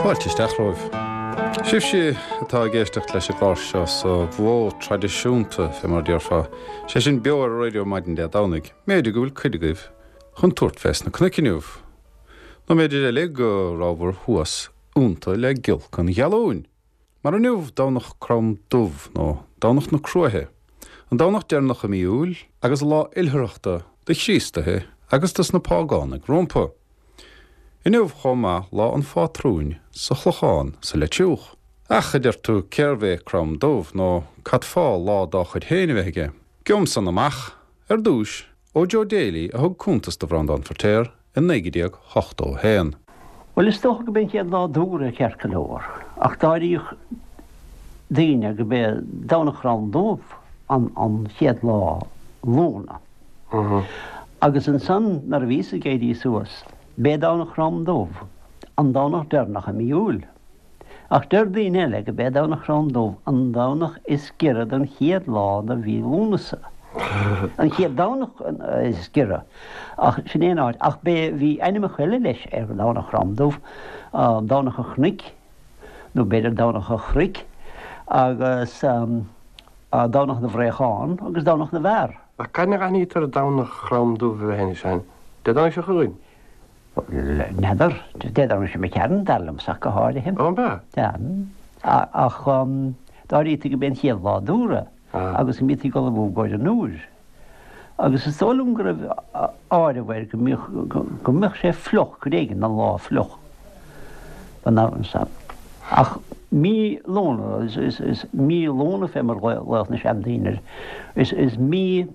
Fáilte isteach romhaibh. Sibhse atá ag éisteacht leis an gclár seo sa mhodh traidisiúnta, fé mar a déarfá, sé sin beo ar an raidió maidin Dé Domhnaigh, mb'fhéidir go bhfuil cuid agaibh chun tabhairt fés na cnoic inniu. Nó mb'fhéidir eile go rabhabhair thuas iontu le giolc an ghealúin. Mar inniu Domhnach Crom Dubh, nó Domhnach na Cruaiche, an Domhnach deireanach i mí Iúil agus lá oilithreachta do Chríostaithe agus dos na págánaigh rompu. Inniu chomh maith lá an phátrúin sa Chlochán sa Leitriúch. Ach, a deir tú, cérbh é Crom Dubh nó cad fáth lá dá chuid féin a bheith aige? Gheobham san amach, ar dtúis, ó Joe Daly a thug cuntas do Bhreandán Feirtéar i 1981. Bhuel, is dócha go b'é an chéad lá d'Fheabhra ceart go leor, ach d'áiríodh daoine go b'é Domhnach Chrom Dubh an chéad lá Lúna. Agus ansan nuair a bhíos ag éirí suas, b'é Domhnach Chrom Dubh an Domhnach deireanach i mí Iúil. Ach deir daoine eile go b'é Domhnach Chrom Dubh an Domhnach is giorra don chéad lá de mhí Lúnasa. An chéad Domhnach is giorra. Ach sin é an áit. Ach b'é, bhí ainmneacha eile leis ar Dhomhnach Chrom Dubh, Domhnach an Chnoic, nó b'fhéidir Domhnach an Chnoic, agus Domhnach na bhFraochán agus Domhnach na bhFear. Ach cathain a aithnítear Domhnach Chrom Dubh a bheith anois ann? Dé Domhnaigh seo chugainn? N'fheadar. Dé Domhnaigh seo imigh tharainn, dar liomsa ach go háirithe. Ó, an b'ea? Sea. Ach d'áirítí go b'é an chéad lá d'Fheabhra agus go mbítí ag ullmhú i gcomhair an Iúir. Agus is dóigh liom go raibh áireamh air go mbíodh, go mbeadh sé fliuch, cuid éigin den lá fliuch don am san. Ach mí Lúna, is mí Lúna fé mar a ghlaodh na seandaoine air, is mí,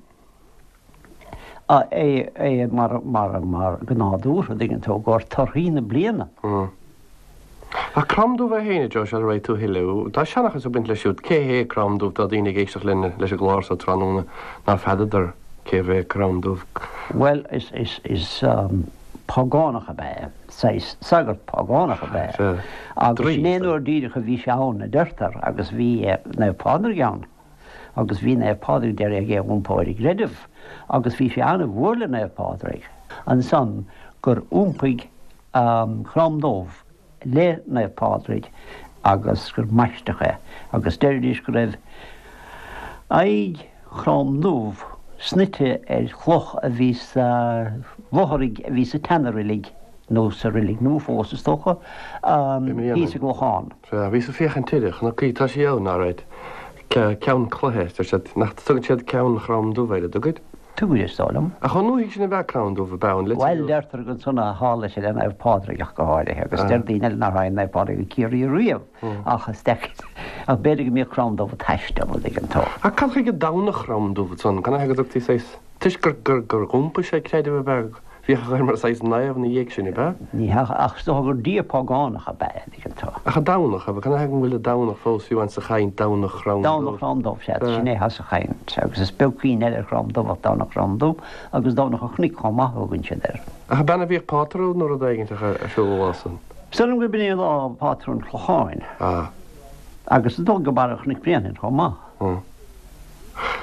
é mar mar go nádúrtha, an dtuigeann tú, i gcomhair torthaí na bliana. Ach Crom Dubh é féin, a Joe, sula raghaidh tú a thuilleadh, tá seanchas ag baint leis siúd. Cé hé Crom Dubh? Tá daoine ag éisteacht linn leis an gclár so tráthnóna ná feadadar cérbh é Crom Dubh. Bhuel, is is is págánach ab ea é, saghas sagart págánach ab ea é. Agus sin é an uair díreach a bhí sé ann, a deirtear, agus bhí Naomh Pádraig ann. Agus bhí Naomh Pádraig d'iarraidh é a iompó ar an gcreideamh, agus bhí sé an-mhór le Naomh Pádraig ansan gur iompaigh Crom Dubh le Naomh Pádraig agus gur maisteadh é. Agus deiridís go raibh aghaidh Chrom Dubh snoite ar chloch a bhí sa bhfothraigh a bhí sa tseana-reilig, nó sa reilig nua fós is dócha, thíos i gClochán. Sea, bhíos ag féachaint uirthi, chonac í, tá sí ann, alright. Ceann cloiche, deir siad, nach dtugann siad Ceann Chrom Dubh air, an dtugaid? Tugaid, is dóigh liom. Ach chomh ndúthaigh sin ab ea Crom Dubh, ab ea, an litir Bhuel, deirtear gur ansan a tharla sé le Naomh Pádraig ach go háirithe, agus deir daoine eile nár tháinig Naomh Pádraig go Ciarraí riamh, ach is deacair, ach b'fhéidir go mbíodh Crom Dubh ag taisteal, an dtuigeann tú. Ach cad chuige Domhnach Chrom Dubh ansan, canathaobh go dtugtaí saghas, toisc gur, gur, gur iompaigh sé creideamh ab ea? Bhíodh air mar saghas naomh ina dhiaidh sin, ab ea? Ní hea, ach is dócha gur dia págánach ab ea é, an dtuigeann tú. Ach an Domhnach, ab ea? Canathaobh go bhfuil an Domhnach fós fiú amháin sa chaint, Domhnach Chrom Dubh? Domhnach Chrom Dubh, sea, sin é atá sa chaint, agus is beag cuimhne eile ar Chrom Dubh ach Domhnach Chrom Dubh, agus Domhnach an Chnoic chomh maith a thugann siad air. Ach ab ea a bhíodh patrún nó rud éigin ar siúl an lá san? Is dóigh liom gurb in é lá pátrún an Chlocháin. Ah. Agus is dóigh go Barra Chnoic Bréanainn chomh maith. Ah.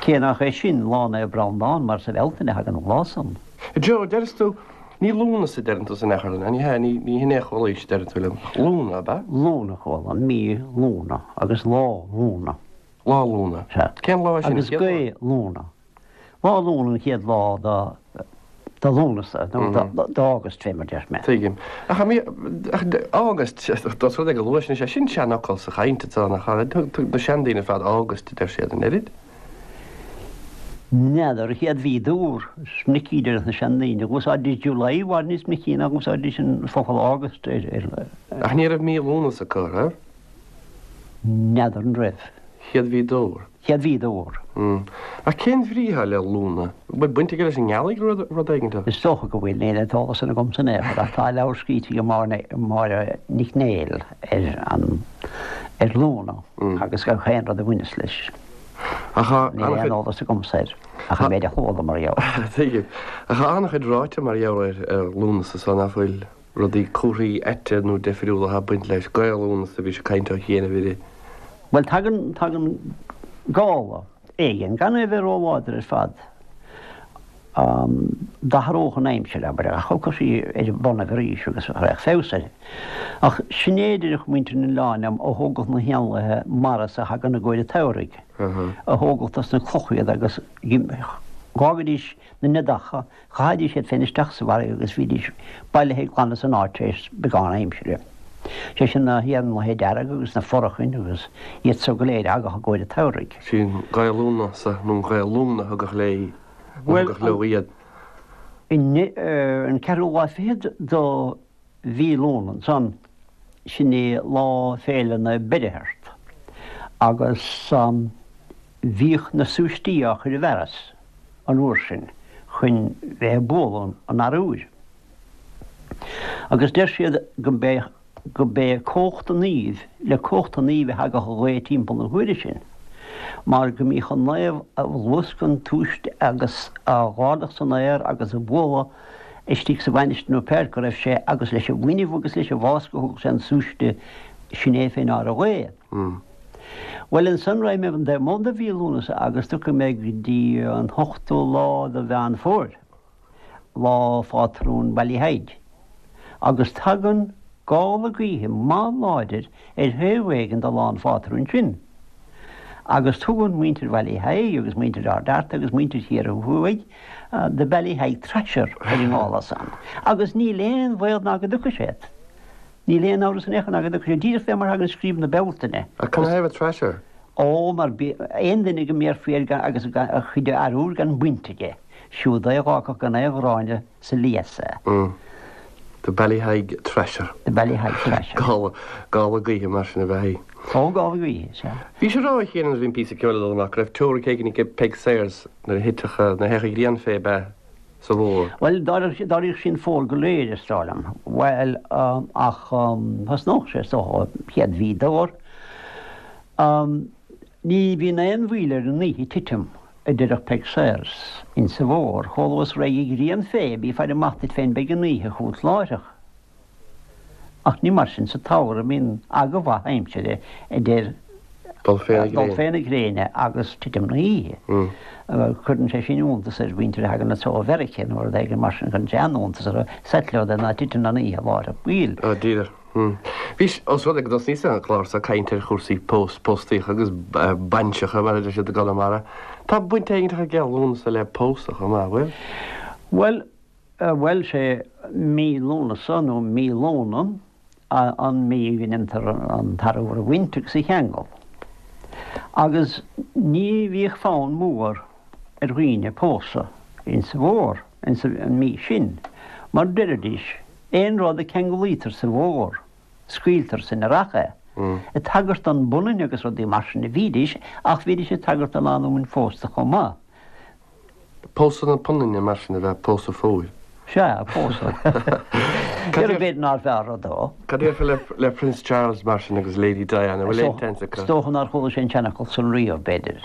Cé nach é sin lá Naomh Breandán mar sa Bhealtaine a thagann an lá san. Joe, deireas tú, ní Lúnasa a deireann tú san athchur, ní hea, ní, ní hin é a chualaís, deireann tú liom. Lúna, ab ea? Lúna a chuala, mí Lúna agus lá Lúna. Lá Lúna. Sea. Cén lá é sin? Agus gaoth Lúna. Lá Lúna an chéad lá do, do Lúnasa, nó do, d'August fé mar deir mé. Tuigim. Ach, mí, ach, August, dós rud é go luath sin, is é sin seanfhocal sa chaint atá, nach ea? Thug na seandaoine ar fad August a deir siad, an oiread? N'fheadar, an chéad mhí d'Fheabhra, is minic a deir na seandaoine, dh'úsáididís July i bhfad níos minicí ná dh'úsáididís an focal August ar, ar. Ach ní raibh mí Lúnasa acu, an raibh? N'fheadar an raibh. Chéad mhí d'Fheabhra. Chéad mhí d'Fheabhra. Ach cén bhrí atá le Lúna? An bhfuil baint aige leis an ngealaigh nó rud éigin? Is dócha go bhfuil, níl an t-eolas san agamsa in aon chor, ach tá leabhar scríte ag Máire Nic Néill ar an, ar Lúna agus gach aon rud a bhaineas leis. Ach tá Níl aon an-chuid. eolas agamsa air, ach an méid a chuala mar gheall. Tuigim. Ach tá an-chuid ráite mar gheall ar ar Lúnasa so nach bhfuil rudaí comharthaí aite nó deifriúla atá ag baint leis. Gaoth Lúnasa, bhí sé ag caint ó chianaibh uirthi. Bhuel, tagann, tagann gála éigin, gan é a bheith róláidir ar fad. D'athródh an aimsir, abair, ach thiocfadh sí ar a bonnaibh arís agus raghadh feabhas uirthi. Ach sin é a deireadh muintir an oileáin liom a thógadh na héanlaithe mara so a thagann i gcomhair an tsamhraidh, a thógadh dos na clocha iad agus dh'fhágaidís na neadacha, chaithidís iad féin isteach sa bhfarraige agus bhídís bailithe glan as an áit tar éis beagán aimsire. Sé sin na héanlaithe dearga agus na forachain agus iad so go léir a thagadh i gcomhair an tsamhraidh. Sí an Ghaoth Lúnasa nó an Ghaoth Lúna a thugadh léi, a thugadh leo iad. An ceathrú lá fichead do mhí Lúnasa ansan, sin é lá féile Naomh Beirtheart agus bhíodh na súistí á chur i bhfearas. an uair sin chun bheith ag bualadh an arbhair. Agus deir siad go mb'é go mb'é cumhacht an naoimh, le cumhacht an naoimh a thagadh an ghaoth timpeall na huaire sin, mar go mbíodh an naomh ag luascadh an tsúiste agus á dh'ardach san aer agus á bhualadh istigh sa mhainistir nó pé áit go raibh sé agus leis an bhfuinneamh agus leis an bhfás go thugadh sé an súiste sin é fé ndeár an ghaoth. Bhuel, ansan raghaidh mé an taobh amuigh de mhí Lúnasa agus tiocfaidh mé go dtí an t-ochtú lá de Mheán Fómhair, lá phátrún Ballyheigue, agus tagann gála gaoithe maith láidir ar thaobh éigin de lá an phátrúin sin. Agus tugann muintir Bhallyheigue agus muintir Ard Fhearta agus muintir Chiarraí Thuaidh The Ballyheigue Thrasher ar an ngála san. Agus níl aon bhaol ná go dtiocfaidh sé. Níl aon amhras in aon chor ná go dtiocfaidh sé díreach fé mar thagann scríob na Bealtaine. Ach canathaobh Thrasher? Ó, mar aon duine go mbéarfaí air gan agus a chuid arbhair gan baint aige, siúd é a dh'fhágfadh gan aon ghráinne sa lios é. The Ballyheigue Thrasher. The Ballyheigue Thrasher. Gála, gála gaoithe mar sin ab ea í. Ó, gála gaoithe, sea. Bhís ag rá a Chéin nuair a bhí an píosa ceoil ag dul amach go raibh teoiric éigin ag Peig Sayers nuair a thitfeadh, nuair a théadh an ghrian fé ab ea? sa bhfómhar. Bhuel, d'éiríodh sí an fómhar go léir, is dóigh liom. Bhuel, ach thosnódh sé, is dócha, chéad mhí d'fhómhar. Ní bhíonn aon mhoill ar an oíche titim, a deireadh Peig Sayers, insa bhfómhar. Chomh luath is raghaidh an ghrian fé, bí ag faire amach duit féin, beidh an oíche chugat láithreach. Ach ní mar sin sa tsamhradh, bíonn aga mhaith aimsire idir dul fé na gréine agus titim na hoíche. Cuireann sé sin iontas ar mhuintir a thagann anso ó Mheiriceá nó rud éigin mar sin, cuireann sé an-iontas orthu, is ait leo ná titeann an oíche láithreach baill. Ó, díreach. Bhís, ós rud é go dtosnaíos an clár seo ag caint ar chúrsaí pós, póstaíocha agus bainseacha, mar a deir siad i gConamara, tá baint éigin aige Lúnasa le pósadh chomh maith, bhfuil? Bhuel, Bhuel, sé mí Lúnasa nó mí Lóna an mhí go ndéantar an t-arbhar a bhaint agus a cheangal. Agus ní bhíodh fonn mór ar dhaoine pósadh insa bhfómhar, insa mhí sin, mar deiridís, aon rud a ceanglaítear sa bhfómhar, scaoiltear san earrach é. Ag tagairt don bpunann agus rudaí mar sin a bhídís, ach bhídís ag tagairt do lánúin phósta chomh maith. Pósadh na punainne mar sin ab ea pósadh fómhair. Sea, pósadh. B'fhéidir nárbh fhearr rud dó. Cad a déarfá le Prince Charles mar sin agus Lady Diana, bhfuil aon tseans acu? Is dócha nár chuala sé an seanfhocal san riamh, b'fhéidir.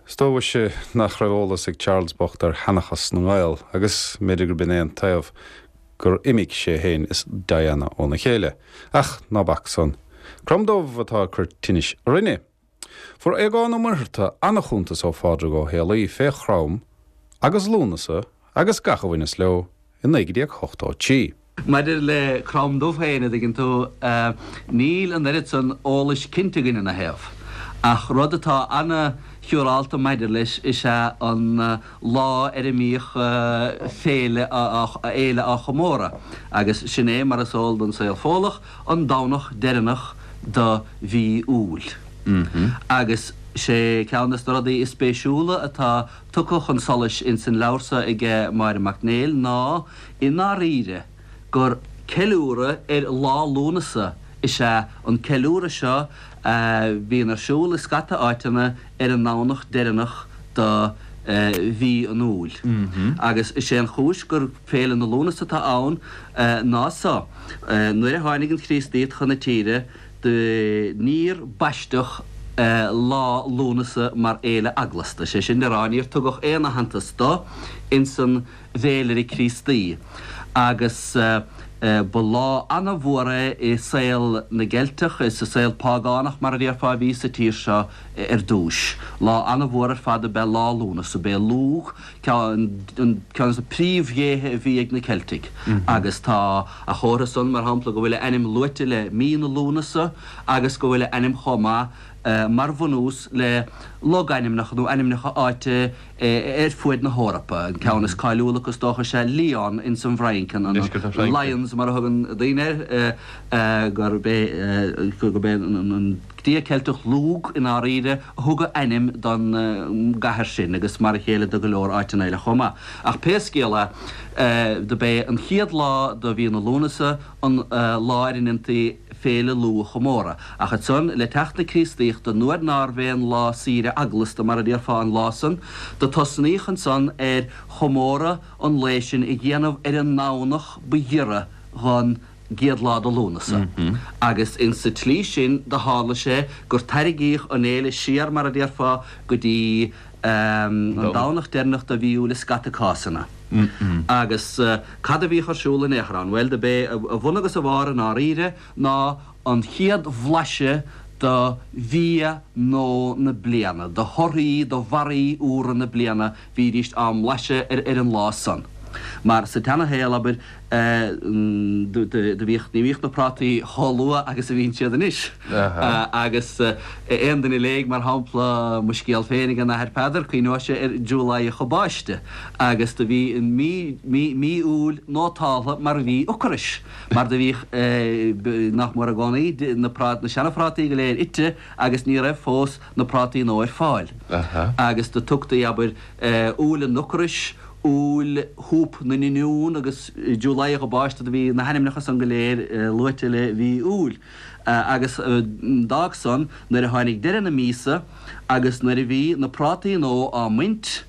Is dóigh nach raibh eolas ag Charles bocht ar sheanchas na nGael agus mb'fhéidir gurb in é an taobh gur imigh sé féin is Diana óna chéile. Ach ná bac san. Crom Dubh atá ag cur tinnis orainne. Fuair Aogán Ó Muircheartaigh an-chuntas ó Phádraig Ó Héalaí fé Chrom agus Lúnasa agus gach a bhaineas leo i 1983. Maidir le Crom Dubh féin, a dtuigeann tú, níl an oiread san eolais cinnte againn ina thaobh. Ach rud atá ana-shiúrálta maidir leis is ea an lá ar a mbíodh féile fhéile á chomóradh, agus sin é, mar is eol don saol Fódhlach, an Domhnach deireanach do mhí Iúil. Agus sé ceann des na rudaí is spéisiúla atá tugtha chun solais ins an leabhar so aige Máire Mac Néill ná, i ndáiríre, gur ceiliúradh ar Lá Lúnasa is ea an ceiliúradh seo a bhíonn ar siúl i scata áiteanna ar an nDomhnach deireanach do mhí an Iúil. Agus is é an chúis gur Féile na Lúnasa atá ann ná so, nuair a tháinig an Chríostaíocht chun na tíre do níor baisteadh Lá Lúnasa mar fhéile eaglasta, sé sin le rá níor tugadh aon aitheantas do ins an bhféilire Críostaí. Agus. Ba lá ana-mhór é i saol na gCeilteach, is sa saol págánach mar a déarfá a bhí sa tír seo ar dtúis. Lá ana-mhór ar fad ab ea Lá Lúnasa. B'é Lugh ceann de na príomhdhéithe a bhí ag na Ceiltigh agus tá a chomhartha san, mar shampla, go bhfuil a ainm luaite le mí na Lúnasa agus go bhfuil a ainm chomh maith mar bhunús le logainmneacha nó ainmneacha áite ar fuaid na hEorpa. An ceann is cáiliúla acu is dócha is ea Lyon ins an bhFrainc, an Lyons mar a thugann daoine air, gurb é gurb é an dia Ceilteach Lugh i ndáiríre a thug a ainm don gcathair sin agus mar a chéile do go leor áiteanna eile chomh maith. Ach pé scéal é, do b'é an chéad lá de mhí na Lúnasa an lá ar a ndéantaí Féile Lugh a chomóradh. Ach ansan, le teacht na Críostaíochta, nuair nárbh aon lá saoire eaglasta, mar a déarfá, an lá san, do tosnaíodh ansan ar chomóradh an lae sin a dhéanamh ar an nDomhnach ba ghiorra dhon gcéad lá de Lúnasa. Agus insa tslí sin do tharla sé gur tairrigíodh an fhéile siar, mar a déarfá, go dtí an Domhnach deireanach de mhí Iúil i scata cásanna. Agus cad a bhíodh ar siúl in aon chor ann? Bhuel, do b'é a bhun agus a bharr i ndáiríre ná an chéad bhlaiseadh de bhia nua na bliana, de thorthaí, de bharraí úra na bliana, bhídíst á mblaiseadh ar an lá san. Mar sa tseana-shaol, abair, do bhíodh, ní bhíodh na prátaí chomh luath agus a bhíonn siad anois. Agus aon duine a léigh, mar shampla, mo scéal féin ag an Athair Peadar, cuimhneoidh sé ar July a Báiste agus do bhí an mí, mí, mí Iúil nótáltha mar mhí ocrais, mar do bhíodh, nach mór i gcónaí, na prát, na seana-phrátaí go léir ite agus ní raibh fós na prátaí nua ar fáil. Agus do tugtaí, abair, Iúil an Ocrais, Iúil Shúp na nOinniún agus July a Báiste do bhí na hainmneacha san go léir luaite le mhí Iúil. Agus d'fhág san nuair a tháinig deireadh na míosa agus nuair a bhí na prátaí nua á mbaint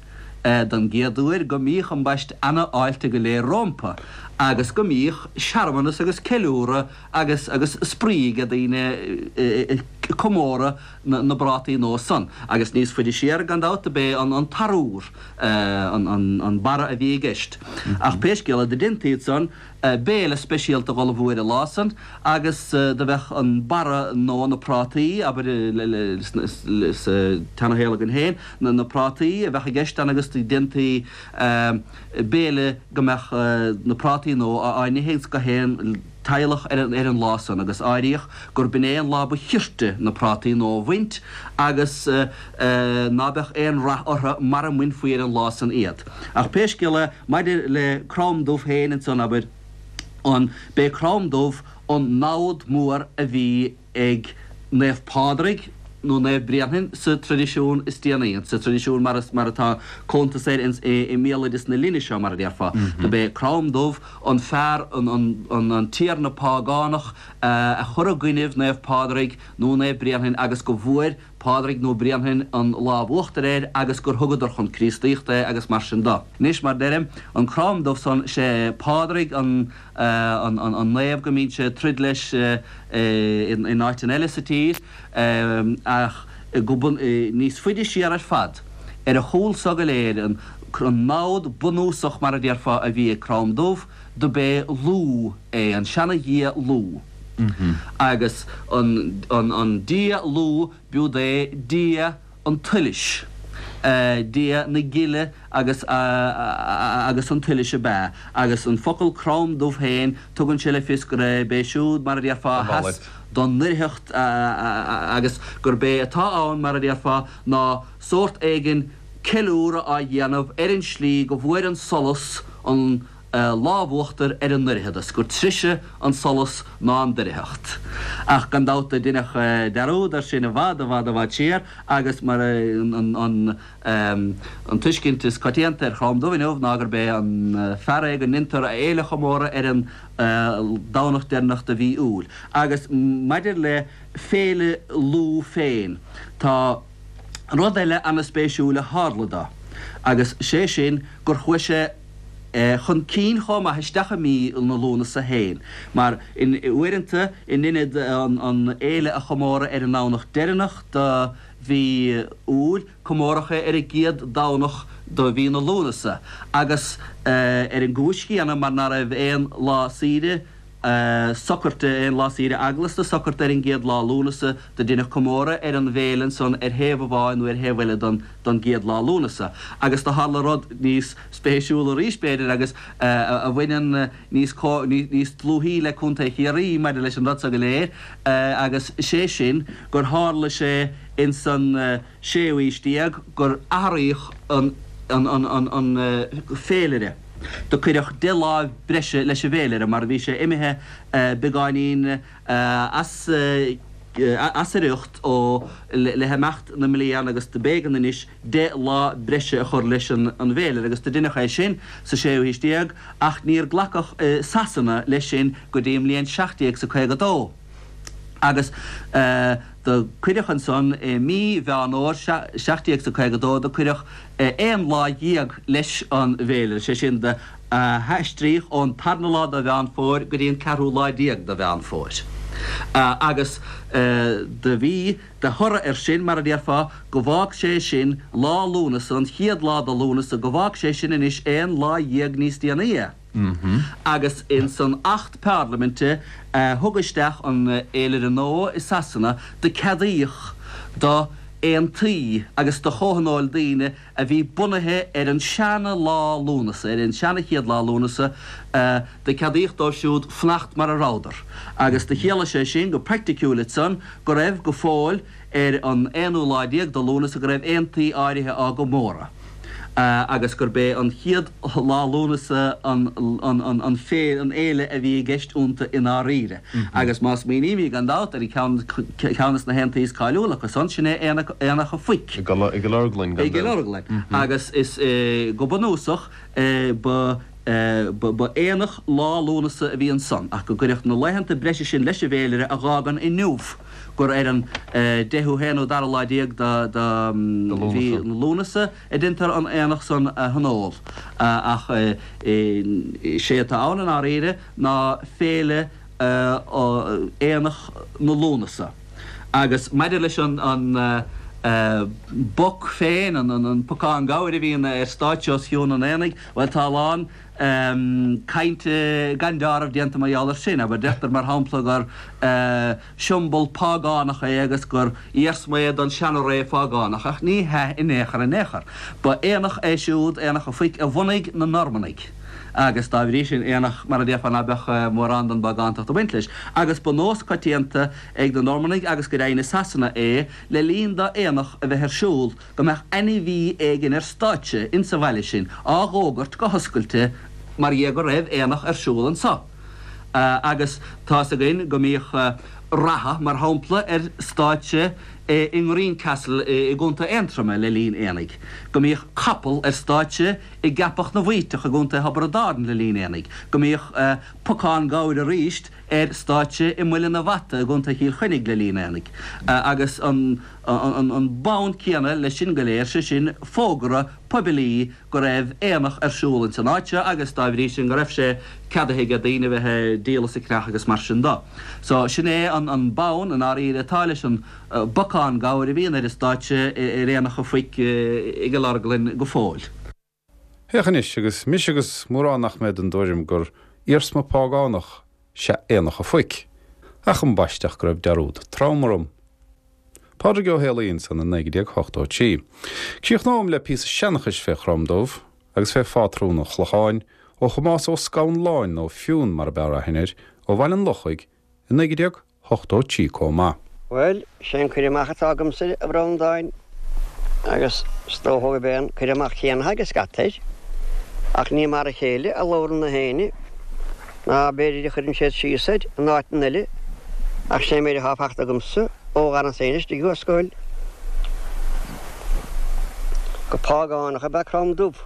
don gcéad uair go mbíodh ambaist ana-fháilte go léir rómpa agus go mbíodh searmanas agus ceiliúradh agus agus spraoi ag daoine ag comóradh na bprátaí nua san. Agus níos faide siar, gan dabht, do b'é an t-arúr úr an barra a bhí i gceist. Ach pé scéal é, do deinti ansan béile speisialta dh'ullmhú ar an lá san agus do bheadh an barra nó na prátaí, abair, sa tseana-shaol againn féin, na prátaí a bheadh i gceist ann agus do deinti béile go mbeadh na prátaí nua á n-ithe ins gach aon teaghlach ar an lá san agus áiríodh gur b'in é an lá ba chirte na prátaí nua a bhaint agus ná beadh aon rath orthu mara mbainfí ar an lá san iad. Ach pé scéal é, maidir le Crom Dubh féin ansan, abair, an, b'é Crom Dubh an namhad mór a bhí ag Naomh Pádraig nó Naomh Bréanainn sa traidisiún is déanaí, sa traidisiún mar mar atá cuntas air ins i mbéaloideas na linne seo, mar a déarfá. Do b'é Crom Dubh an fear, an an an tiarna págánach a chuir i gcoinnibh Naomh Pádraig nó Naomh Bréanainn agus go bhfuair Pádraig nó Bréanainn an lámh uachtair air agus gur thugadar chun Críostaíochta é agus mar sin do. Anois, mar deirim, an Crom Dubh san, sé Pádraig an an an naomh go mbíonn sé ag troid leis in áiteanna eile sa tír ach go bun níos faide siar ar fad, ar a chúl so go léir, an namhad bunúsach mar a déarfá a bhí ag Crom Dubh, do b'é Lugh é, an seana-dhia Lugh. Agus an an dia Lugh b'iúd é dia an tsolais, dia na gile agus agus an tsolais ab ea, agus an focal Crom Dubh féin, tugann sé le fios gurb é siúd, mar a déarfá, a sheas don ndoircheacht agus gurb é atá ann, mar a déarfá, ná sórt éigin ceiliúradh á dhéanamh ar an slí go bhfuair an solas an lámh uachtair ar an ndoircheadas, gur treise an solas ná an doircheacht. Ach gan dabht do deineadh dearúd air sin i bhfad, i bhfad, i bhfad siar agus mar an an tuiscint is coitianta ar Chrom Dubh inniu ná gurb é an fear é go ndeintear a fhéile a chomóradh ar an Domhnach deireanach de mhí Iúil. Agus maidir le Féile Lugh féin, tá rud eile ana-spéisiúil a tharla dó, agus sé sin gur chuaigh sé chun cinn chomh maith isteach i mí na Lúnasa féin, mar uaireanta, in ionad an fhéile a chomóradh ar an nDomhnach deireanach de mhí Iúil, comóradh é ar an gcéad Domhnach de mhí na Lúnasa, agus ar an gcúis chéanna, mar ná raibh aon lá saoire. socairte, aon lá saoire eaglasta socairte ar an gcéad lá Lúnasa, do deineadh comóradh ar an bhféile ansan ar thaobh amháin nó ar thaobh eile don don gcéad lá Lúnasa. Agus do tharla rud níos spéisiúla arís, b'fhéidir, agus a bhaineann níos níos dlúthaí le Contae Chiarraí maidir leis an rud so go léir, agus sé sin gur tharla sé ins an séú haois déag gur athraíodh an an féilire. Do cuireadh deich lá breise leis an bhféilire mar bhí sé imithe beagáinín as as a riocht ó le himeacht na mblian agus do b'éigean anois deich lá breise a chur leis an bhféilire agus do deineadh é sin sa séú haois déag ach níor glacadh i Sasana leis sin go dtí an mbliain 1752 agus do cuireadh ansan i mí Mheán Fhómhair 1752 do cuireadh aon lá dhéag leis an bhféilire, sé sin do haistríodh ón tarna lá de Mheán Fómhair go dtí an ceathrú lá déag de Mheán Fómhair. Agus do bhí de thoradh air sin, mar a déarfá, go bhfág sé sin lá Lúnasa, an chéad lá de Lúnasa, go bhfág sé sin anois aon lá dhéag níos déanaí é. Agus ins an Acht Parlaiminte a thug isteach an fhéilire nua i Sasana do ceadaíodh do aontaí agus do chomhthionóil daoine a bhí bunaithe ar an seana lá Lúnasa, ar an seana chéad lá Lúnasa, do ceadaíodh dóibh siúd fanacht mar a rabhadar. Agus do chiallaigh sé sin go praiticiúil ansan go raibh go fóill ar an aonú lá déag de Lúnasa go raibh aontaí áirithe á gcomóradh agus gurb é an chéad lá Lúnasa an an fhéile a bhí i gceist iontu i ndáiríre. Agus má smaoinímid gan dabht ar cheann ceann de na haontaí is cáiliúla acu san, sin é Aonach an Phoic. I gCill Orglan, gan dabht. I gCill Orglan. Agus is go bunúsach ba Ba aonach lá Lúnasa a bhí ansan, ach go gcuireadh na laethanta breise sin leis an bhféilire a dh'fhágann inniu gur ar an deichiú haonú dara lá déag de mhí Lúnasa a deintear an aonach san a thionól. Ach sé atá ann i ndáiríre ná féile Aonach na Lúnasa. Agus maidir leis an bpoc féin, an pocán gabhair a bhíonn ar stáitse os cionn an aonaigh, bhuel, tá a lán cainte gan deáramh déanta mar gheall air sin. Abair, deirtear, mar shampla, gur siombal págánach é agus gur iarsma é don seana-ré phágánach, ach ní hea in aon chor in aon chor. Ba aonach é siúd, Aonach an Phoic, a bhunaigh na Normannaigh agus dá bhrí sin, aonach, mar a déarfá, ná beadh mórán den bpágántacht ag baint leis. Agus ba nós coitianta ag na Normannaigh agus go deimhin i Sasana é, le linn d'aonach a bheith ar siúl, go mbeadh ainmhí éigin ar stáitse insa bhaile sin á dh'fhógairt go hoscailte mar dhea go raibh aonach ar siúl anso. Agus tá's againn go mbíodh reatha, mar shampla, ar stáitse i nGreencastle i gContae Aontroma le linn aonaigh, go mbíodh capall ar stáitse i gCeapach na bhFaoiteach i gContae Thiobraid Árann le linn aonaigh, go mbíodh pocán gabhair arís ar stáitse i Muileann a' Bhata i gContae Chill Chainnigh le linn aonaigh. Agus an bonn céanna leis sin go léir, sé sin fógra poiblí go raibh aonach ar siúl ins an áit seo agus dá bhrí sin go raibh sé ceadaithe ag daoine a bheith ag díol is ag ceannach agus mar sin do. So sin é an bonn i ndáiríre atá leis an bpocán gabhair a bhíonn ar an stáitse ar Aonach an Phoic i gCill Orglan go fóill. Féach anois, agus mise agus mórán nach mbeadh den dtuairim gur iarsma págánach 'sea Aonach a' Phoic, ach ambaiste go raibh dearúd trom orm. Pádraig Ó Héalaí ansan i 1983. Críochnóm le píosa seanchais fé Chrom Dubh agus fé phátrún an Chlocháin ó Thomás Ó Scanláin nó Fionn mar ab fhearr aithne air, ó Bhaile an Lochaigh i 1983 comh maith. Bhuel, sé an cur amach atá agamsa air, a Bhreandáin, agus is dócha gurb é an cur amach céanna atá ag scata air, ach ní mar a chéile a labhrann na héinne, ná b'fhéidir a chuireann siad síos air in áiteanna eile, ach sé an méid atá fachta agamsa ó dh'fhanas féin istigh thuas scoil, gur págánach ab ea Crom Dubh,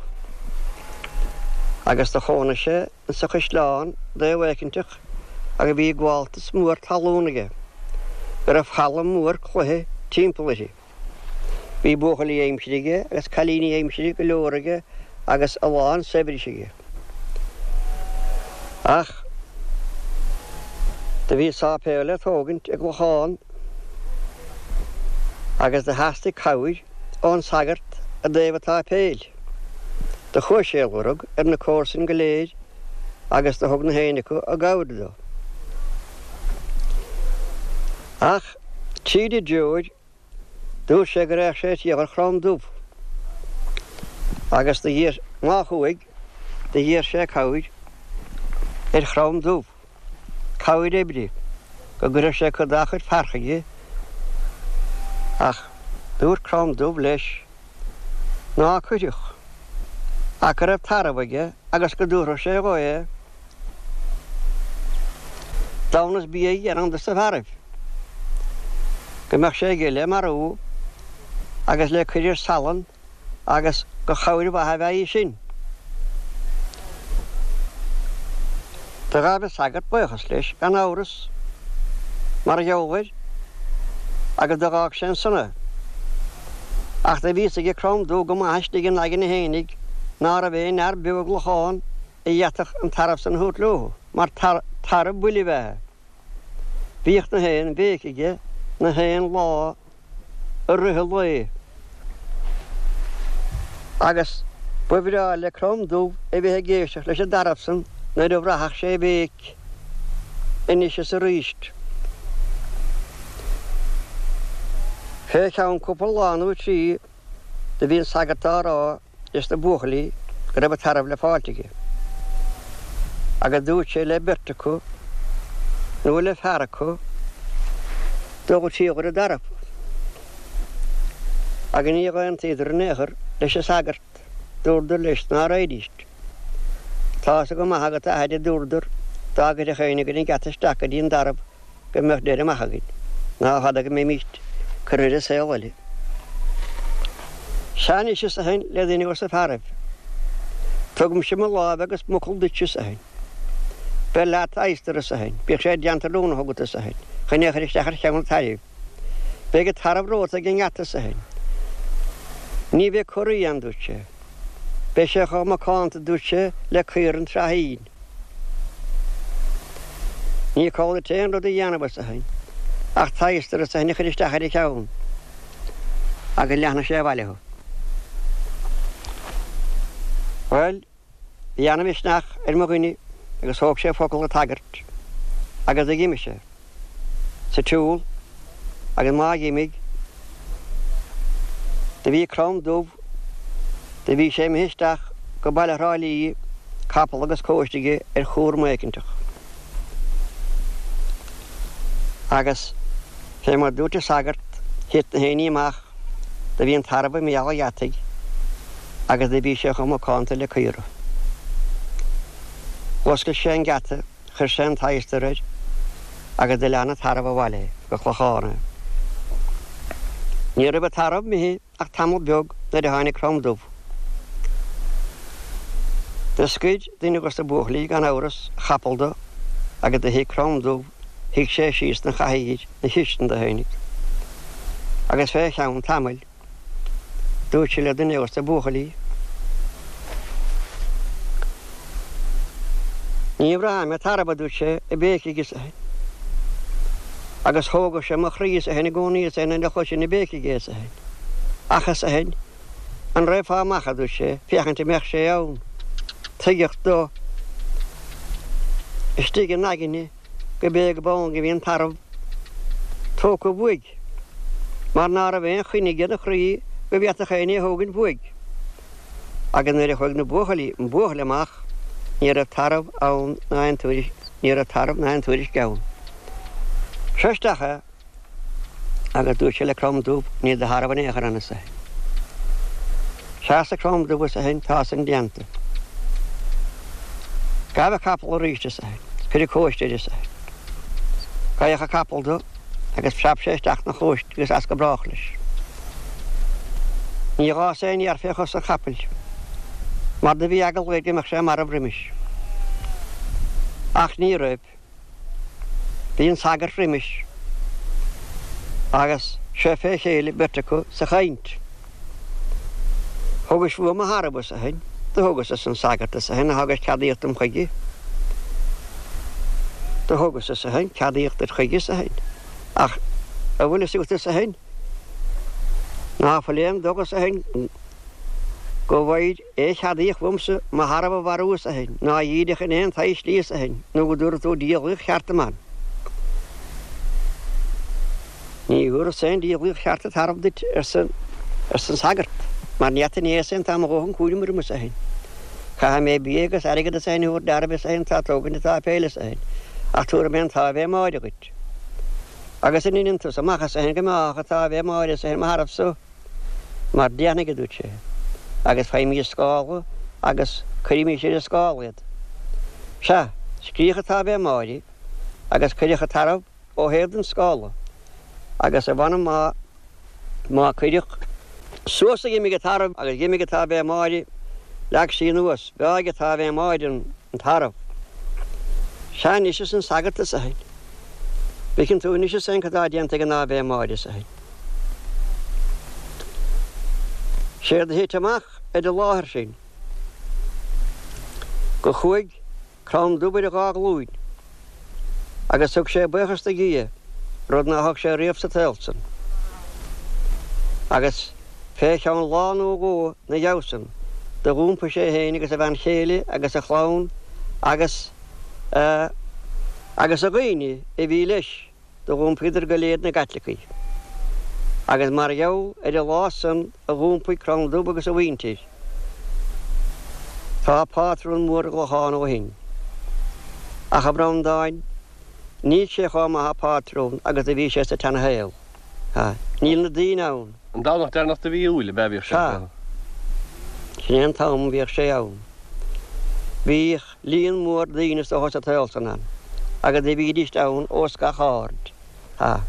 agus do chónaigh sé insa chaisleán dtaobh éicinteach agus bhí gabháltas mór talún aige, go raibh falla mór cloiche timpeall uirthi. Bhí buachaillí aimsire aige agus cailíní aimsire go leor aige agus a lán saibhris aige. Ach do bhí sáipéal le tógaint i gClochán agus do theastaigh cabhair ón sagart i dtaobh an tsáipéil. Do chuaigh sé a lorg ar na comharsain go léir agus do thug na héinne acu a gcabhair dó. Ach tríd an dtreoir, dúirt sé go raghadh sé ag triall ar Chrom Dubh. Agus do dh'iarr, má chuaigh, do dh'iarr sé cabhair ar Chrom Dubh, cabhair oibre, go gcuirfeadh sé cuid dá chuid fear chuige. Ach dúirt Crom Dubh leis ná cuirfeadh, ach go raibh tarbh aige agus go dtabharfadh sé dhó é. Damhnas bídh ar cheann dos na fearaibh, go mbeadh sé aige le marú agus le cuir ar salann agus gur chabhair mhaith a bheadh í sin. Do ghabh an sagart buíochas leis gan amhras mar gheall air agus do dh'fhág sé ansan é. Ach do bhí fhios aige Crom Dubh go maith istigh ina aigne fhéinig ná raibh aon fhear beo i gClochán a d'fhéadfadh an tarbh san a thabhairt leo, mar tarbh buile ab ea é. Bhíodh na haon bhéic aige na haon lá i rith an lae. Agus ba bhreá le Crom Dubh a bheith ag éisteacht leis an dtarbh san nuair a bhraithfeadh sé a bhéic anois is aríst. Fé cheann cúpla lá nó trí do bhí an sagart á rá leis na buachaillí go raibh an tarbh le fáilt aige. Agus dúirt sé le beirt acu, nó le fear acu, dul ag triall ar an dtarbh. Agus níor aontaíodar in aon chor leis an sagart, dúradar leis ná raghaidíst. Tá fhios go maith agat, a athair, a dúradar, dá gcuirfeadh éinne againn an geata isteach go dtí an dtarbh, go mbeadh deireadh maith againn, ná fada go mbeimíst curtha ar an saol eile. Sea anois, arsa eisean le duine dos na fearaibh, tugaimse mo láimh agus m'fhocal duit, arsa eisean. Beir leat adhastar, arsa eisean, bíodh sé i dteannta rúnach agat, arsa eisean, chun é a chur isteach ar cheann an tairbh. Beidh an tarbh romhat ag an ngeata, arsa eisean. Ní bheidh corraí ann, dúirt sé. Beidh sé chomh macánta, dúirt sé, le caora an tsraithín. Ní call duit aon rud a dhéanamh, arsa eisean, ach t'adhastar, arsa eisean, a chur isteach ar a cheann, agus leanfaidh sé abhaile thú. Bhuel, bhí ana-mhisneach ar mo dhuine agus thóg sé focal an tsagairt agus d'imigh sé sa tsiúl agus má dh'imigh, do bhí Crom Dubh, do bhí sé imithe isteach go baile Thrá Lí, capall agus cóiste aige ar chúram éicinteach. Agus fé mar dúirt an sagart, thit na héinní amach, do bhí an tarbh i mbéal an gheataigh agus do bhí sé chomh macánta le caora. Dh'oscail sé an geata. Chuir sé an t-adhastar air agus do lean an tarbh abhaile é go Clochán é. Ní raibh an tarbh imithe ach tamall beag nuair a tháinig Crom Dubh. Do scoir duine dos na buachaillí gan amhras a chapall do agus do shuigh Crom Dubh, shuigh sé síos 'na chathaoir 'na chistin do fhéinig. Agus fé cheann tamaill. Dúirt sé le duine dos na buachaillí. Ní bhraithim an tarbh, a dúirt sé, ag béicigh arsa eisean. Agus thógadh sé mo chroí arsa eisean i gcónaí arsa eisean nuair a chloisinn ag béicigh é arsa eisean. Ach arsa eisean, an raghfá amach, a dúirt sé, féachaint an mbeadh sé ann. Tuigeadh dó istigh ina aigne go b'é go b'ann go bhí an tarbh tógtha uaidh, mar ná raibh aon choinne aige 'na chroí go bhféadfadh éinne é thógaint uaidh. Agus nuair a chuaigh na buachaillí, an buachaill amach, ní raibh tarbh ann ná aon tuairisc, ní raibh tarbh ná aon tuairisc ann. Seo isteach é. Agus dúirt sé le Crom Dubh, Níl do tharbh in aon chor ann, arsa eisean. Sea, arsa Crom Dubh, arsa eisean, tá san déanta. Gabh an capall arís, arsa eisean, cuir an cóiste air, arsa eisean. Gabhadh an capall do agus phreab sé isteach 'na chóiste agus as go brách leis. Ní dh'fhás aon fhéar fé chos an chapaill, mar do bhí eagla air go mbeadh sé marbh roimis. Ach ní raibh. Bhí an sagart roimis agus seo fé chéile beirt acu sa chaint. Thugais uaim mo tharbh, arsa eisean. Do thugas, arsa an sagart, arsa eisean, a thugais ceadaíocht dom chuige. Do thugas, arsa eisean, ceadaíocht duit chuige, arsa eisean. Ach a bhfuil fhios agat, arsa eisean, ná fuil aon dóigh, arsa eisean, go bhfaighir Aon cheadaíocht uaimse mo tharbh a mharú, arsa eisean, ná a dhídeach in aon tsaghas slí, arsa eisean, nó go dtabharfaidh tú diabhlaíocht cheart dom ann. Ní thabharfas aon diabhlaíocht cheart an tarbh duit, arsa an sagart, mar ní fhada inné is tá mo dhóthain cúraim orm is féin. Caithfidh mé bia agus airgead is féin a thabhairt d'fhearaibh is féin atá ag tógaint an tsáipéil is féin, ach tabharfaidh mé an tAibhe Máire dhuit. Agus an ndeineann tusa amach is féin go mbeádh an tAibhe Máire is féin mo tharbh so? Mar déanfaidh, a dúirt sé, agus faighimís scála agus cuirimís ar an scála iad. Sea, scríodh an tAibhe Máire agus cuireadh an tarbh ó thaobh den scála agus a mh'anam má má cuireadh suas a dh'imigh an tarbh agus dh'imigh an tAibhe Máire, leag sí anuas, bheáigh an tAibhe Máire an tarbh. Sea anois arsa an sagart is a bhfeiceann tú anois is féin cad tá déanta ag an Ave Máire is a. Séard a thit amach ar an láthair sin go chuaigh Crann Dubh ar a dhá ghlúin agus thug sé buíochas do Dhia, rud ná thug sé riamh sa tsaol san. Agus fé cheann lá nó dhó 'na dhiaidh san do dh'iompaigh sé féin agus a bhean chéile agus a chlann agus a agus a dhaoine a bhí leis do dh'iompaíodar go léir 'na gCaitlicigh. Agus mar gheall ar an lá san a dh'iompaigh Crann Dubh agus a mhuintir, tá pátrún mór i gClochán ó shin. Ach, a Bhreandáin, níl sé chomh maith a phátrún agus a bhí sé sa tseana-shaol. Ha. Níl na daoine ann. An Domhnach deireanach de mhí Iúil ab ea a bhíodh sé? Sea. Sin é an t-am a bhíodh sé ann. Bhíodh. Líon mór daoine is dócha sa tsaol san ann, agus do bhídíst ann ós gach aird. Ha.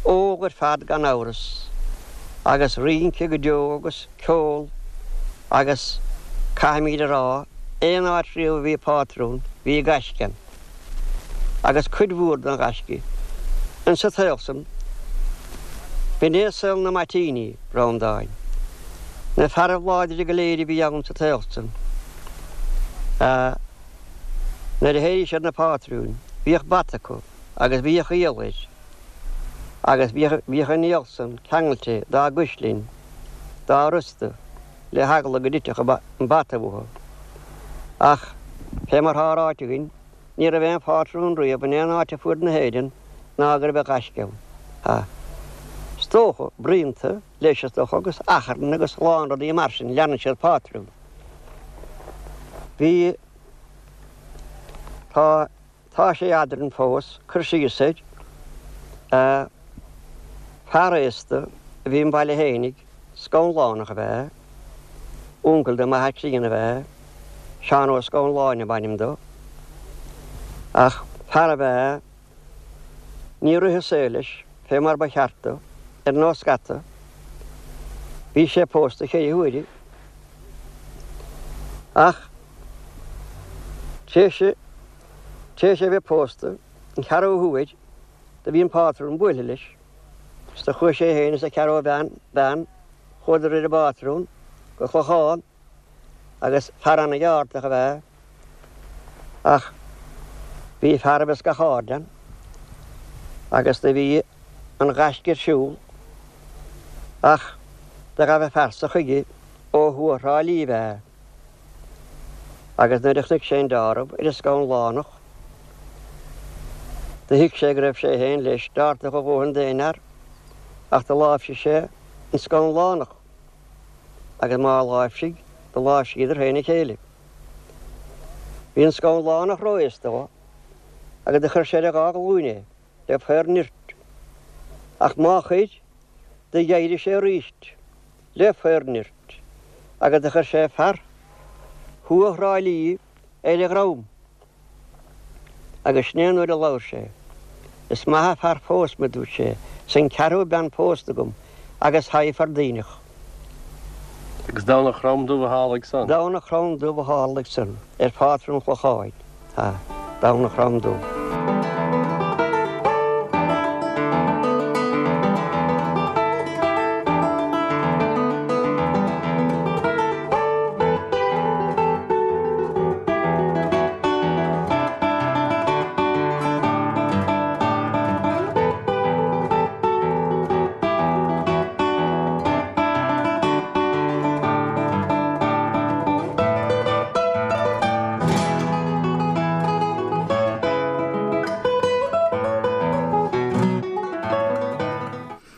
Ól ar fad gan amhras, agus rince go deo agus ceol agus caithfimíd a rá, aon áit riamh a bhí pátrún, bhí gaisce ann. Agus cuid mhór den ghaisce insa tsaol san, b'in é saol na mbaitíní, Breandáin. Na fearaibh láidre go léir a bhí ann sa tsaol san. Nuair a théiríodh siad na pátrúin, bhíodh bata acu agus bhíodh iall air agus bhíodh an iall san ceangailte dá gcuislinn, dá rosta, le heagla go dtitfeadh an bata uathu. Ach, fé mar thá ráite againn, ní raibh aon phátrún riamh in aon áit ar fuaid na hÉireann ná go raibh gaisce ann. Ha. Is dócha, bruíonta, leis is dócha, agus achrann agus a lán rudaí mar sin, leanann siad pátrún. Bhí, tá, tá sé eadrainn fós, cur síos air, a, fear aosta a bhí im bhaile fhéinig, Scanlánach ab ea é, uncail do m'athair críonna ab ea é, Seán Ó Scanláin ab ainm dó, ach fear ab ea é, Níor rith an saol leis fé mar ba cheart dó, ar nós scata. Bhí sé pósta cheithre huaire. Ach tar éis, tar éis é bheith pósta an ceathrú huair, do bhí an pátrún buailthe leis, is do chuaigh sé féin is a cheathrú bhean, bean, chuadar ar an bpátrún go Clochán. agus fear ana-cheártach ab ea é, ach bhí fearaibh as gach aird ann, agus do bhí an ghaisce ar siúl, ach do ghabh an fear so chuige ó thuaidh Thrá Lí ab ea é, agus nuair a chonaic sé an deáramh ar an Scanlánach, do thuig sé go raibh sé féin leis deártach a dhóthain d'aon fhear, ach do láimhsigh sé an Scanlánach. agus má láimhsigh, do láimhsíodar féin a chéile. Bhí an Scanlánach ró-aosta dhó, agus do chuir sé ar a dhá ghlúin é, le faor nirt. Ach má chuir, do dh'éirigh sé aríst, le faor nirt, agus do chuir sé fear thuaidh Thrá Lí ar a dhrom. Agus sin é an uair a labhair sé. Is maith a' fear fós me, dúirt sé, 's an ceathrú bean pósta agam agus thaidhg fear duíneach. Agus Domhnach Chrom Dubh a tharlaigh san. Domhnach Chrom Dubh a tharlaigh san, ar phátrún Chlocháin, ha, Domhnach Chrom Dubh.